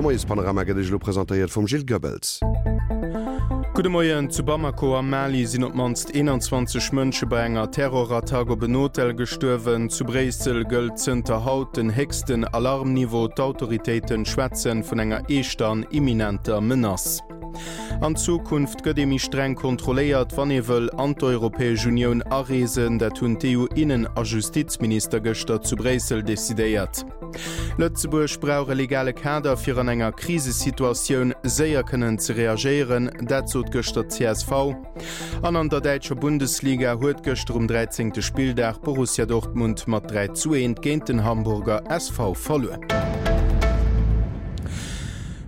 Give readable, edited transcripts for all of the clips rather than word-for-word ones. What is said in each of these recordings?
Moiespanorama gëtt Iech elo presentéiert vum Gilles Goebbels. Gudde Moien, Zu Bamako am Mali sinn op d'mannst 21 Mënsche bei enger Terrorattack op en Hotel gestuerwen. Zu Bréissel gëllt zënter haut den héchsten Alarmniveau. D'Autoritéite schwätzen vun enger eeschter an imminenter Menace. An Zukunft gëtt ee méi streng kontrolléiert, wann ee wëll an d'Europäesch Unioun areesen. Dat hunn d'EU-Innen a Justizminister gëschter zu Bréissel decidéiert. Lëtzebuerg brauch e legale Kader, fir an enger Krisesituatioun séier kënnen ze reagéieren. Dat sot gëschter d'CSV. An an der däitscher Bundesliga huet gëschter um 13. Spilldag Borussia Dortmund mat 3 zu 1 géint den Hamburger SV verluer.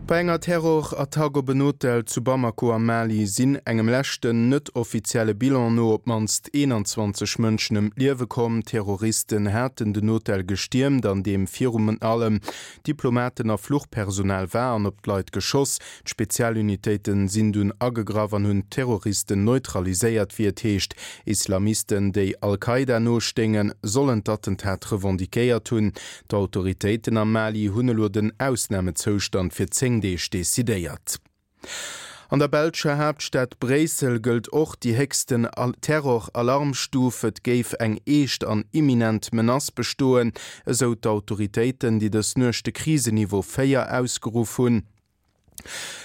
Bei enger Terrorattack op en Hotel zu Bamako am Mali sinn engem leschten net-offizielle Bilan no op d'mannst 21 Mënschen ëm d'Liewe komm. Terroristen haten den Hotel gestiermt, an deem virun allem Diplomaten a Fluchpersonal war, an op d'Leit geschoss. D'Spezialunitéite sinn dunn agegraff an hunn d'Terroristen neutraliséiert, wéi et heescht. Islamisten, déi Al-Qaida nostéingen, sollen d'Attentat revendiquéiert hunn. D'Autoritéiten am Mali hunn elo den Ausnamezoustand fir 10 Deeg decidéiert. An der belscher Haaptstad Bréissel gëllt och déi héchsten Terror-Alarmstuf. Et géif eng eescht an imminent Menace bestoen, esou d'Autoritéiten, déi dës Nuecht de Kriseniveau 4 ausgeruff hunn.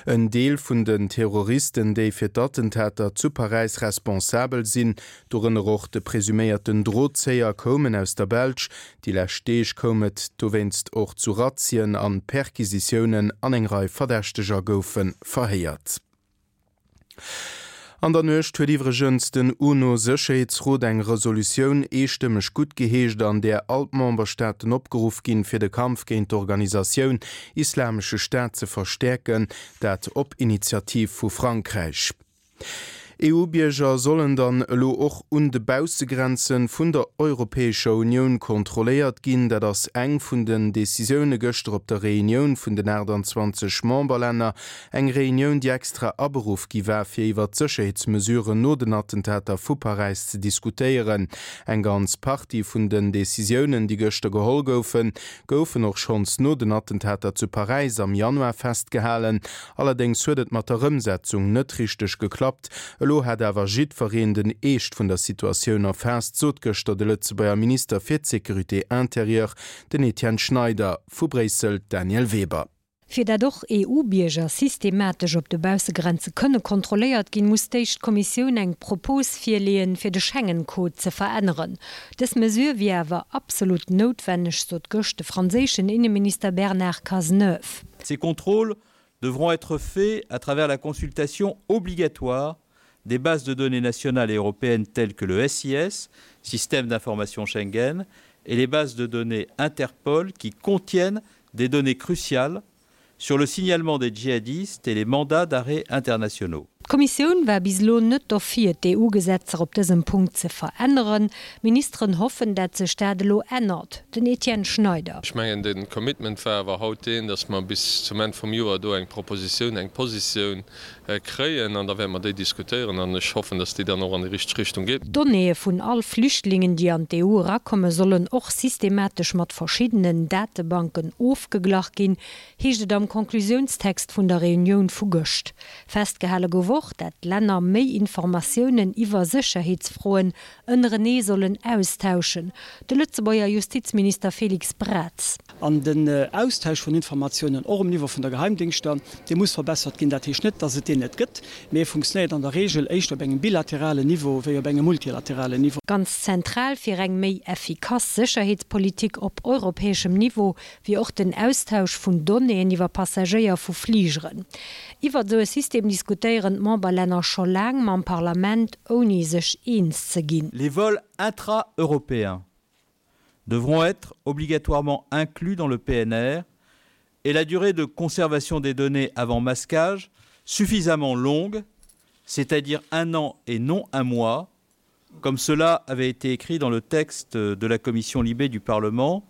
En Deel vun den Terroristen, déi fir d'Attentater zu Paräis responsabel sinn, dorënner och de presuméierten Drozéier, koumen aus der Belsch. Déi lescht Deeg koum et dowéinst och zu Razzien an Perquisitiounen an eng Rei Verdächteger goufe verhéiert. An der Nuecht huet iwwregens den UNO-Sécherheetsrot eng Resolutioun eestëmmeg guttgeheescht, an där all d'Memberstaaten opgeruff ginn, fir de Kampf géint d'Organisatioun Islamesche Staat ze verstäerken, dat op Initiativ vu Frankräich. EU-Bierger sollen dann elo och un de Baussegrenze vun der Europäescher Unioun kontrolléiert ginn. Dat ass eng vun den Decisioune gëschter op der Reunioun vun den 28 Memberlänner. Eng Reunioun, déi extra aberuff gi war, fir iwwer d'Sécherheetsmesuren no den Attentater vu Paräis ze diskutéieren. Eng ganz Partie vun den Decisiounen, déi gëschter geholl goufen, goufen och schonns no den Attentater zu Paräis am Januar festgehalen. Allerdéngs huet et mat der Ëmsetzung net richteg geklappt. Elo hätt awer jiddwereen den Eescht vun der Situatioun erfaasst, sot gëschter de Lëtzebuerger Minister fir d'Sécurité intérieure, den Etienne Schneider. Vu Bréissel d'Danièle Weber. Fir dat och EU-Bierger systematesch op de Baussegrenze kënne kontrolléiert ginn, muss d'éischt d'Kommissioun eng Propos virleeën, fir de Schengen-Code ze veränneren. Dës Mesure wier awer absolut noutwenneg, sot gëscht de franséischen Inneminister Bernard Cazeneuve. Ces contrôles devront être faits à travers la consultation obligatoire des bases de données nationales et européennes telles que le SIS, système d'information Schengen, et les bases de données Interpol qui contiennent des données cruciales sur le signalement des djihadistes et les mandats d'arrêt internationaux. D'Kommissioun war bis elo net dofir, d'EU-Gesetzer op dësem Punkt ze veränneren. D'Ministeren hoffen, dat sech dat elo ännert. Den Etienne Schneider. Ech mengen, de Commitment war awer haut deen, datt mer bis zum Enn vum Joer do eng Propositioun, eng Positioun kréien an da wäerte mer déi diskutéieren an ech hoffen, datt déi dann och an déi richteg Richtung geet. D'Donnéeë vun all Flüchtlingen, déi an d'EU erakommen, sollen och systematesch mat verschiddenen Datebanken ofgeglach ginn, heescht et am Conclusiounstext vun der Reunioun vu gëscht. Festgehale gouf och, dat d'Länner méi Informatiounen iwwer Sécherheetsfroen ënnerenee sollen austauschen. De Lëtzebuerger Justizminister Félix Braz. An den Austausch vun Informatiounen, och um Niveau vun der Geheimdingschter, dee muss verbessert ginn. Dat heescht net, dass et deen net gëtt, mee e funktionéiert an der Regel éischter op engem bilateralen Niveau wéi op engem multilateralen Niveau. Ganz zentral fir eng méi effikass Sécherheetspolitik op europäeschem Niveau wier och den Austausch vun Donnéeën iwwer Passagéier vu Fligeren. Iwwert esou e System diskutéieren d'Memberlänner scho laang mam Parlament, ouni sech eens ze ginn. Les vols intra-européens devront être obligatoirement inclus dans le PNR et la durée de conservation des données avant masquage suffisamment longue, c'est-à-dire un an et non un mois, comme cela avait été écrit dans le texte de la commission libée du Parlement,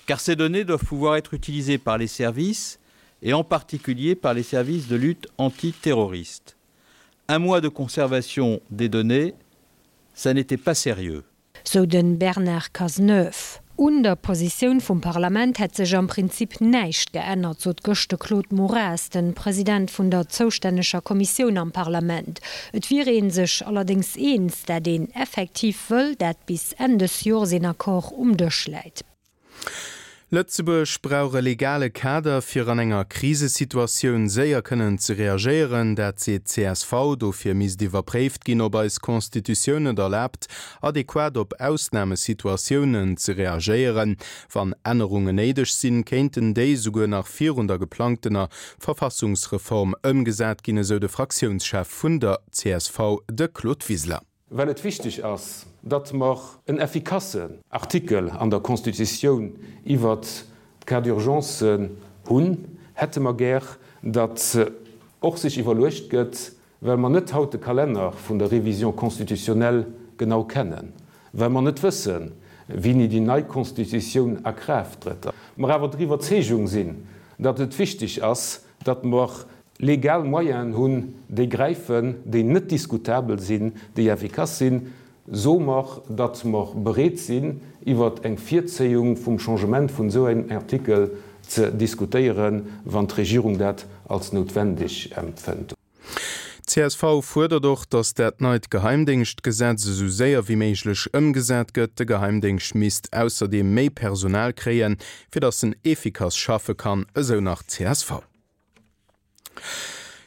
car ces données doivent pouvoir être utilisées par les services et en particulier par les services de lutte antiterroriste. Un mois de conservation des données, ça n'était pas sérieux. Sou de Bernard Cazeneuve. Un der Positioun vum Parlament hätt sech am Prinzip näischt geännert, sot gëscht de Claude Moraes, de President vun der zoustänneger Kommissioun am Parlament. Et wier ee sech allerdéngs eens, dat een effektiv wëll, dat bis Enn des Jors een Accord um Dësch läit. Lëtzebuerg brauch e legale Kader, fir an enger Krisesituatioun séier kënnen ze reagéieren. Dat seet d'CSV. Dofir misst iwwerpréift ginn, ob eis Constitutioun et erlaabt, adequat op Ausnamesituatiounen ze reagéieren. Wann Ännerungen néideg sinn, kéinten déi esouguer nach virun der geplangtener Verfassungsreform ëmgesat ginn, esou de Fraktiounschef vun der csv, de Claude Wiseler. Well et wichteg ass, datt mer en effikassen Artikel an der Constitutioun iwwert d'Cas d'urgence hunn, hätte mer gär, datt och sech iwwerluecht gëtt, well mer net haut de Kalenner vun der Révision constitutionnelle genau kennen, well mer net wëssen, wéini déi nei Constitutioun a Kraaft trëtt, mer awer der Iwwerzeegung sinn, datt et wichteg ass, datt mer legal Moyenen hunn, déi gräifen, déi net diskutabel sinn, déi effikass sinn, soe mer, datt mer bereet sinn, iwwer eng Virzéiung vum Changement vun esou engem Artikel ze diskutéieren, wann d'Regierung dat als noutwendeg empfënnt. Csv fuerdert och, datt dat neit Geheimdéngschtgesetz esou séier wéi méiglech ëmgesat gëtt. De Geheimdéngscht misst ausserdeem méi Personal kréien, fir datt en efficace schaffe kann, esou nach csv.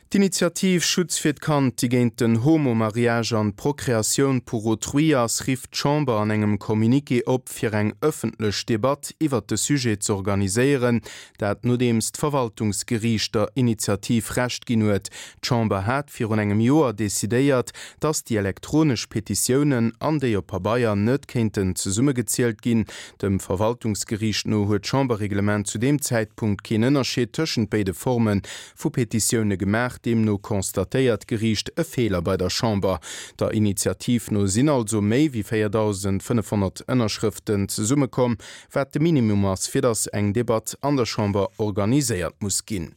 D'Initiativ Schutz fir d'Kand, déi géint den Homo-Mariage an d'Procréatioun pour autrui ass, rifft d'Chamber an engem Communiqué op, fir eng ëffentlech Debatt iwwert de Sujet z'organiséieren. Dat nodeems d'Verwaltungsgeriicht der Initiativ Recht ginn huet. D'Chamber hat virun engem Joer decidéiert, datt déi elektronesch Petitiounen an déi op Pabeier net kéinten zesummegezielt ginn. Dem Verwaltungsgeriicht no huet d'Chamberreglement zu deem Zäitpunkt keen Ënnerscheed tëschent béide Forme vu Petitioune gemaach. Deemno constatéiert d'Geriicht e Feeler bei der Chamber. Der Initiativ no sinn also méi wéi 4.500 Ënnerschrëften zesummekomm, wat de Minimum ass, fir datt eng Debatt an der Chamber organiséiert muss ginn.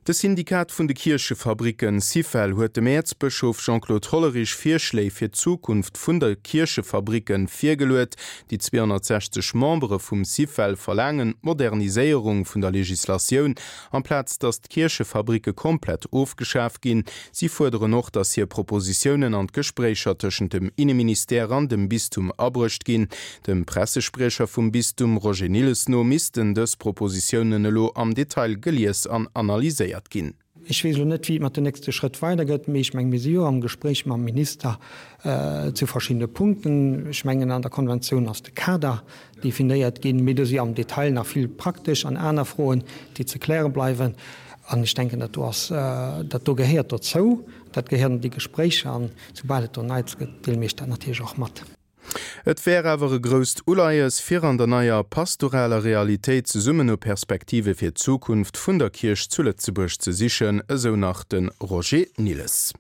De Syndikat vun de Kierchefabricken, Syfel, huet dem Äerzbëschof Jean-Claude Hollerich Virschléi fir d'Zukunft vun de Kierchefabricken virgeluet. Déi 260 Membere vum Syfel verlaangen d'Moderniséierung vun der Legislatioun, amplaz datt d'Kierchefabricke komplett ofgeschaf ginn. Si fuerderen och, datt hir Propositiounen an d'Gespréicher tëschent dem Inneministère an dem Bistum abruecht ginn. Dem Pressespriecher vum Bistum Roger Nilles no missten dës Propositiounen elo am Detail gelies an analyséiert ginn. Ech weess elo net, wéi et mat den nächste Schrëtt weidergëtt, mee ech mengen, mir si jo am Gespréich mam Minister zu verschiddene Punkten. Ech mengen, an der Konventioun ass de Kader definéiert ginn, mee do si am Detail nach vill praktesch an aner Froen, déi ze kläre bleiwen. An ech denken, dat do ass, dat do gehéiert dozou, dat gehéiert an déi Gespréicher. An soubal et do Neits gëtt, deele mir Iech dat natierlech och mat. Et wär awer e grousst Uleies, fir an der neier pastoraler Realitéit zesummen no Perspektive fir d'Zukunft vun der Kierch zu Lëtzebuerg ze sichen, esou nach de Roger Nilles.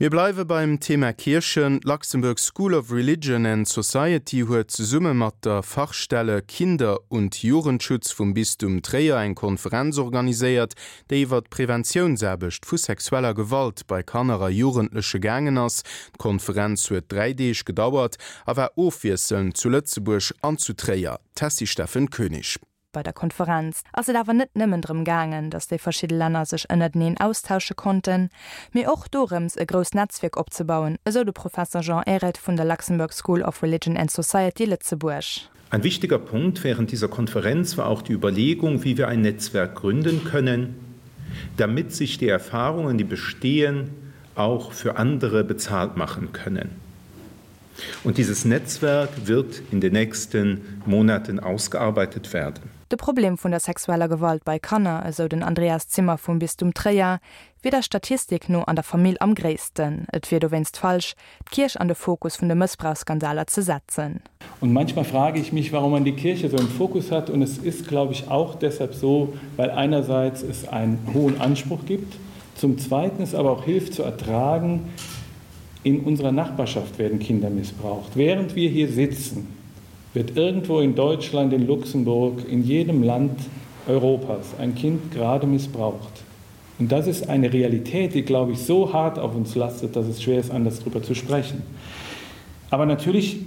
Mir bleiwe beim Thema Kierchen. D'Luxembourg School of Religion and Society huet zesumme mat der Fachstelle Kinder und Jugendschutz vum Bistum Tréier eng Konferenz organiséiert, déi iwwer d'Preventiounsaarbecht vu sexueller Gewalt bei Kanner a Jugendleche gaangen ass. D'Konferenz huet 3 Deeg gedauert a war ofwiesselnd zu Lëtzebuerg an zu Tréier. D'Tessy Steffen Koenig. Bei der Konferenz ass et awer net nëmmen drëm gaangen, datt déi verschidde Länner sech ënnerteneen austausche konnten, mee och dorëms e grousst Netzwierk opzebauen, esou de Professer Jean Ehret vun der Luxembourg School of Religion and Society Lëtzebuerg. Ein wichtiger Punkt während dieser Konferenz war auch die Überlegung, wie wir ein Netzwerk gründen können, damit sich die Erfahrungen, die bestehen, auch für andere bezahlt machen können. Und dieses Netzwerk wird in den nächsten Monaten ausgearbeitet werden. De Problem vun der sexueller Gewalt bei Kanner, esou den Andreas Zimmer vum Bistum Tréier, wier der Statistik no an der Famill am gréissten. Et wier dowéinst falsch, d'Kierch an de Fokus vun de Mëssbrauchsskandaler ze setzen. Und manchmal frage ich mich, warum man die Kirche so im Fokus hat. Und es ist, glaube ich, auch deshalb so, weil einerseits es einen hohen Anspruch gibt, zum Zweiten es aber auch hilft zu ertragen, In unserer Nachbarschaft werden Kinder missbraucht. Während wir hier sitzen, wird irgendwo in Deutschland, in Luxemburg, in jedem Land Europas ein Kind gerade missbraucht. Und das ist eine Realität, die, glaube ich, so hart auf uns lastet, dass es schwer ist, anders darüber zu sprechen. Aber natürlich.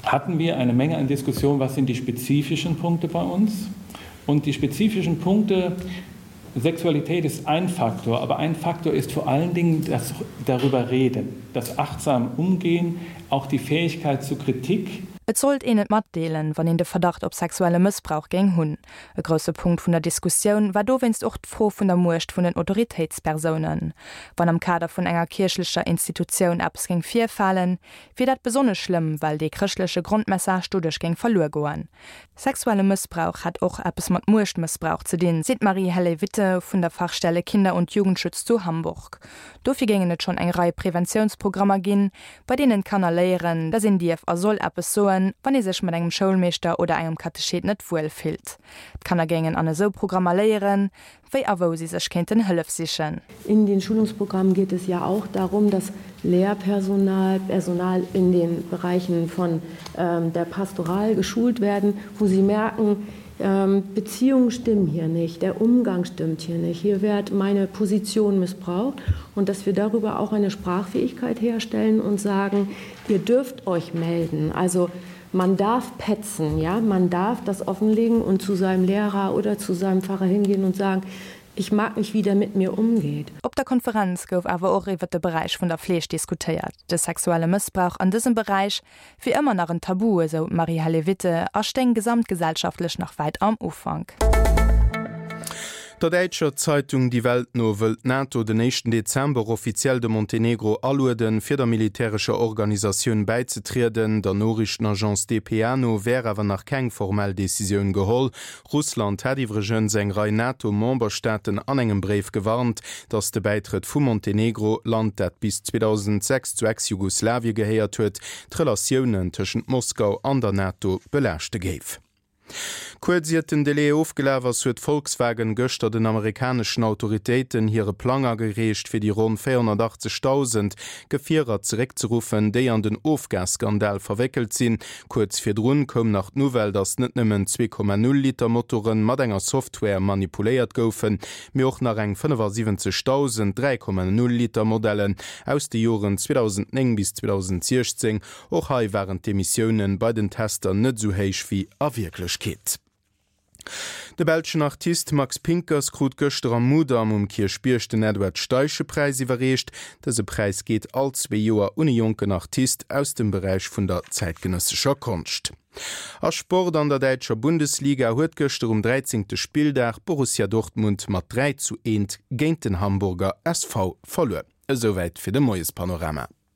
Hatten wir eine Menge an Diskussionen, was sind die spezifischen Punkte bei uns? Und die spezifischen Punkte Sexualität ist ein Faktor, aber ein Faktor ist vor allen Dingen das darüber reden, das achtsam umgehen, auch die Fähigkeit zu Kritik. Et sollt een et matdeelen, wann een de Verdacht op sexuelle Mëssbrauch géing hunn. E grousse Punkt vun der Diskussioun war dowéinst och d'Fro vun der Muecht vun den Autoritéitspersounen. Wann am Kader vun enger kierchlecher Institutioun eppes géing virfalen, wier dat besonnesch schlëmm, well dee chrëschtleche Grondmessage doduerch géing verluer goen. Sexuelle Mëssbrauch hätt och eppes mat Muechtmëssbrauch ze dinn, seet d'Marie-Helle Witte vun der Fachstelle Kinder und Jugendschutz zu Hamburg. Dofir géingen et schonn eng Rei Preventiounsprogrammer ginn, bei deenen d'Kanner léieren, dass een dierf a soll eppes soen, wann ee sech mat engem Schoulmeeschter oder engem Katechet net wuel fillt. D'Kanner géingen an esou Programmer léieren, wéi a wou si sech kéinten Hëllef sichen. In den Schulungsprogrammen geht es ja auch darum, dass Lehrpersonal, Personal in den Bereichen von ähm, der Pastoral geschult werden, wo sie merken, ähm, Beziehungen stimmen hier nicht, der Umgang stimmt hier nicht, hier wird meine Position missbraucht und dass wir darüber auch eine Sprachfähigkeit herstellen und sagen, ihr dürft euch melden. Also man darf petzen, ja, man darf das offenlegen und zu seinem Lehrer oder zu seinem Pfarrer hingehen und sagen, ich mag nicht, wie der mit mir umgeht. Op der Konferenz gouf awer och iwwer de Beräich vun der Fleeg diskutéiert. De sexuelle Mëssbrauch an dësem Beräich wier ëmmer nach en Tabu, esou d'Marie-Helle Witte, a stéing gesamtgesellschaftlech nach wäit am Ufank. Der däitscher Zeitung Die Welt no wëll d'NATO den éischten Dezember offiziell de Montenegro alueden, fir der militärescher Organisatioun bäizetrieden. Der Noriichtenagence dpa no wär awer nach keng formell Decisioun geholl. Russland hat iwwregens eng Rei NATO-Memberstaaten an engem Bréif gewarnt, datt de Bäitrëtt vu Montenegro, Land dat bis 2006 zu Ex-Jugoslawie gehéiert huet, d'Relatiounen tëschent Moskau an der NATO belaaschte géif. Kuerz iert den Delai ofgelaf ass, huet Volkswagen gëschter den amerikaneschen Autoritéiten hire Plang agereecht, fir déi ronn 480.000 Gefierer zeréckzeruffen, déi an den Ofgasskandal verwéckelt sinn. Kuerz virdrun koum nach d'Nouvelle, datt net nëmmen 2,0 Liter Motoren mat enger Software manipuléiert goufen, mee och nach eng 75.000 3,0 Liter Modellen aus de Joren 2009 bis 2016. Och hei waren d'Emissiounen bei den Tester net esou héich wéi a Wierklechkeet. De belschen Artist Max Pinckers krut gëschter am Mudam um Kierchbierg den Edward Steiche-Präis iwwerreecht. Dëse Präis geet all zwee Joer un e jonken Artist aus dem Beräich vun der zäitgenëssescher Konscht. A Sport, An der däitscher Bundesliga huet gëschter um 13. Spilldag Borussia Dortmund mat 3 zu 1 géint den Hamburger SV verluer. Esouwäit fir de Moiespanorama.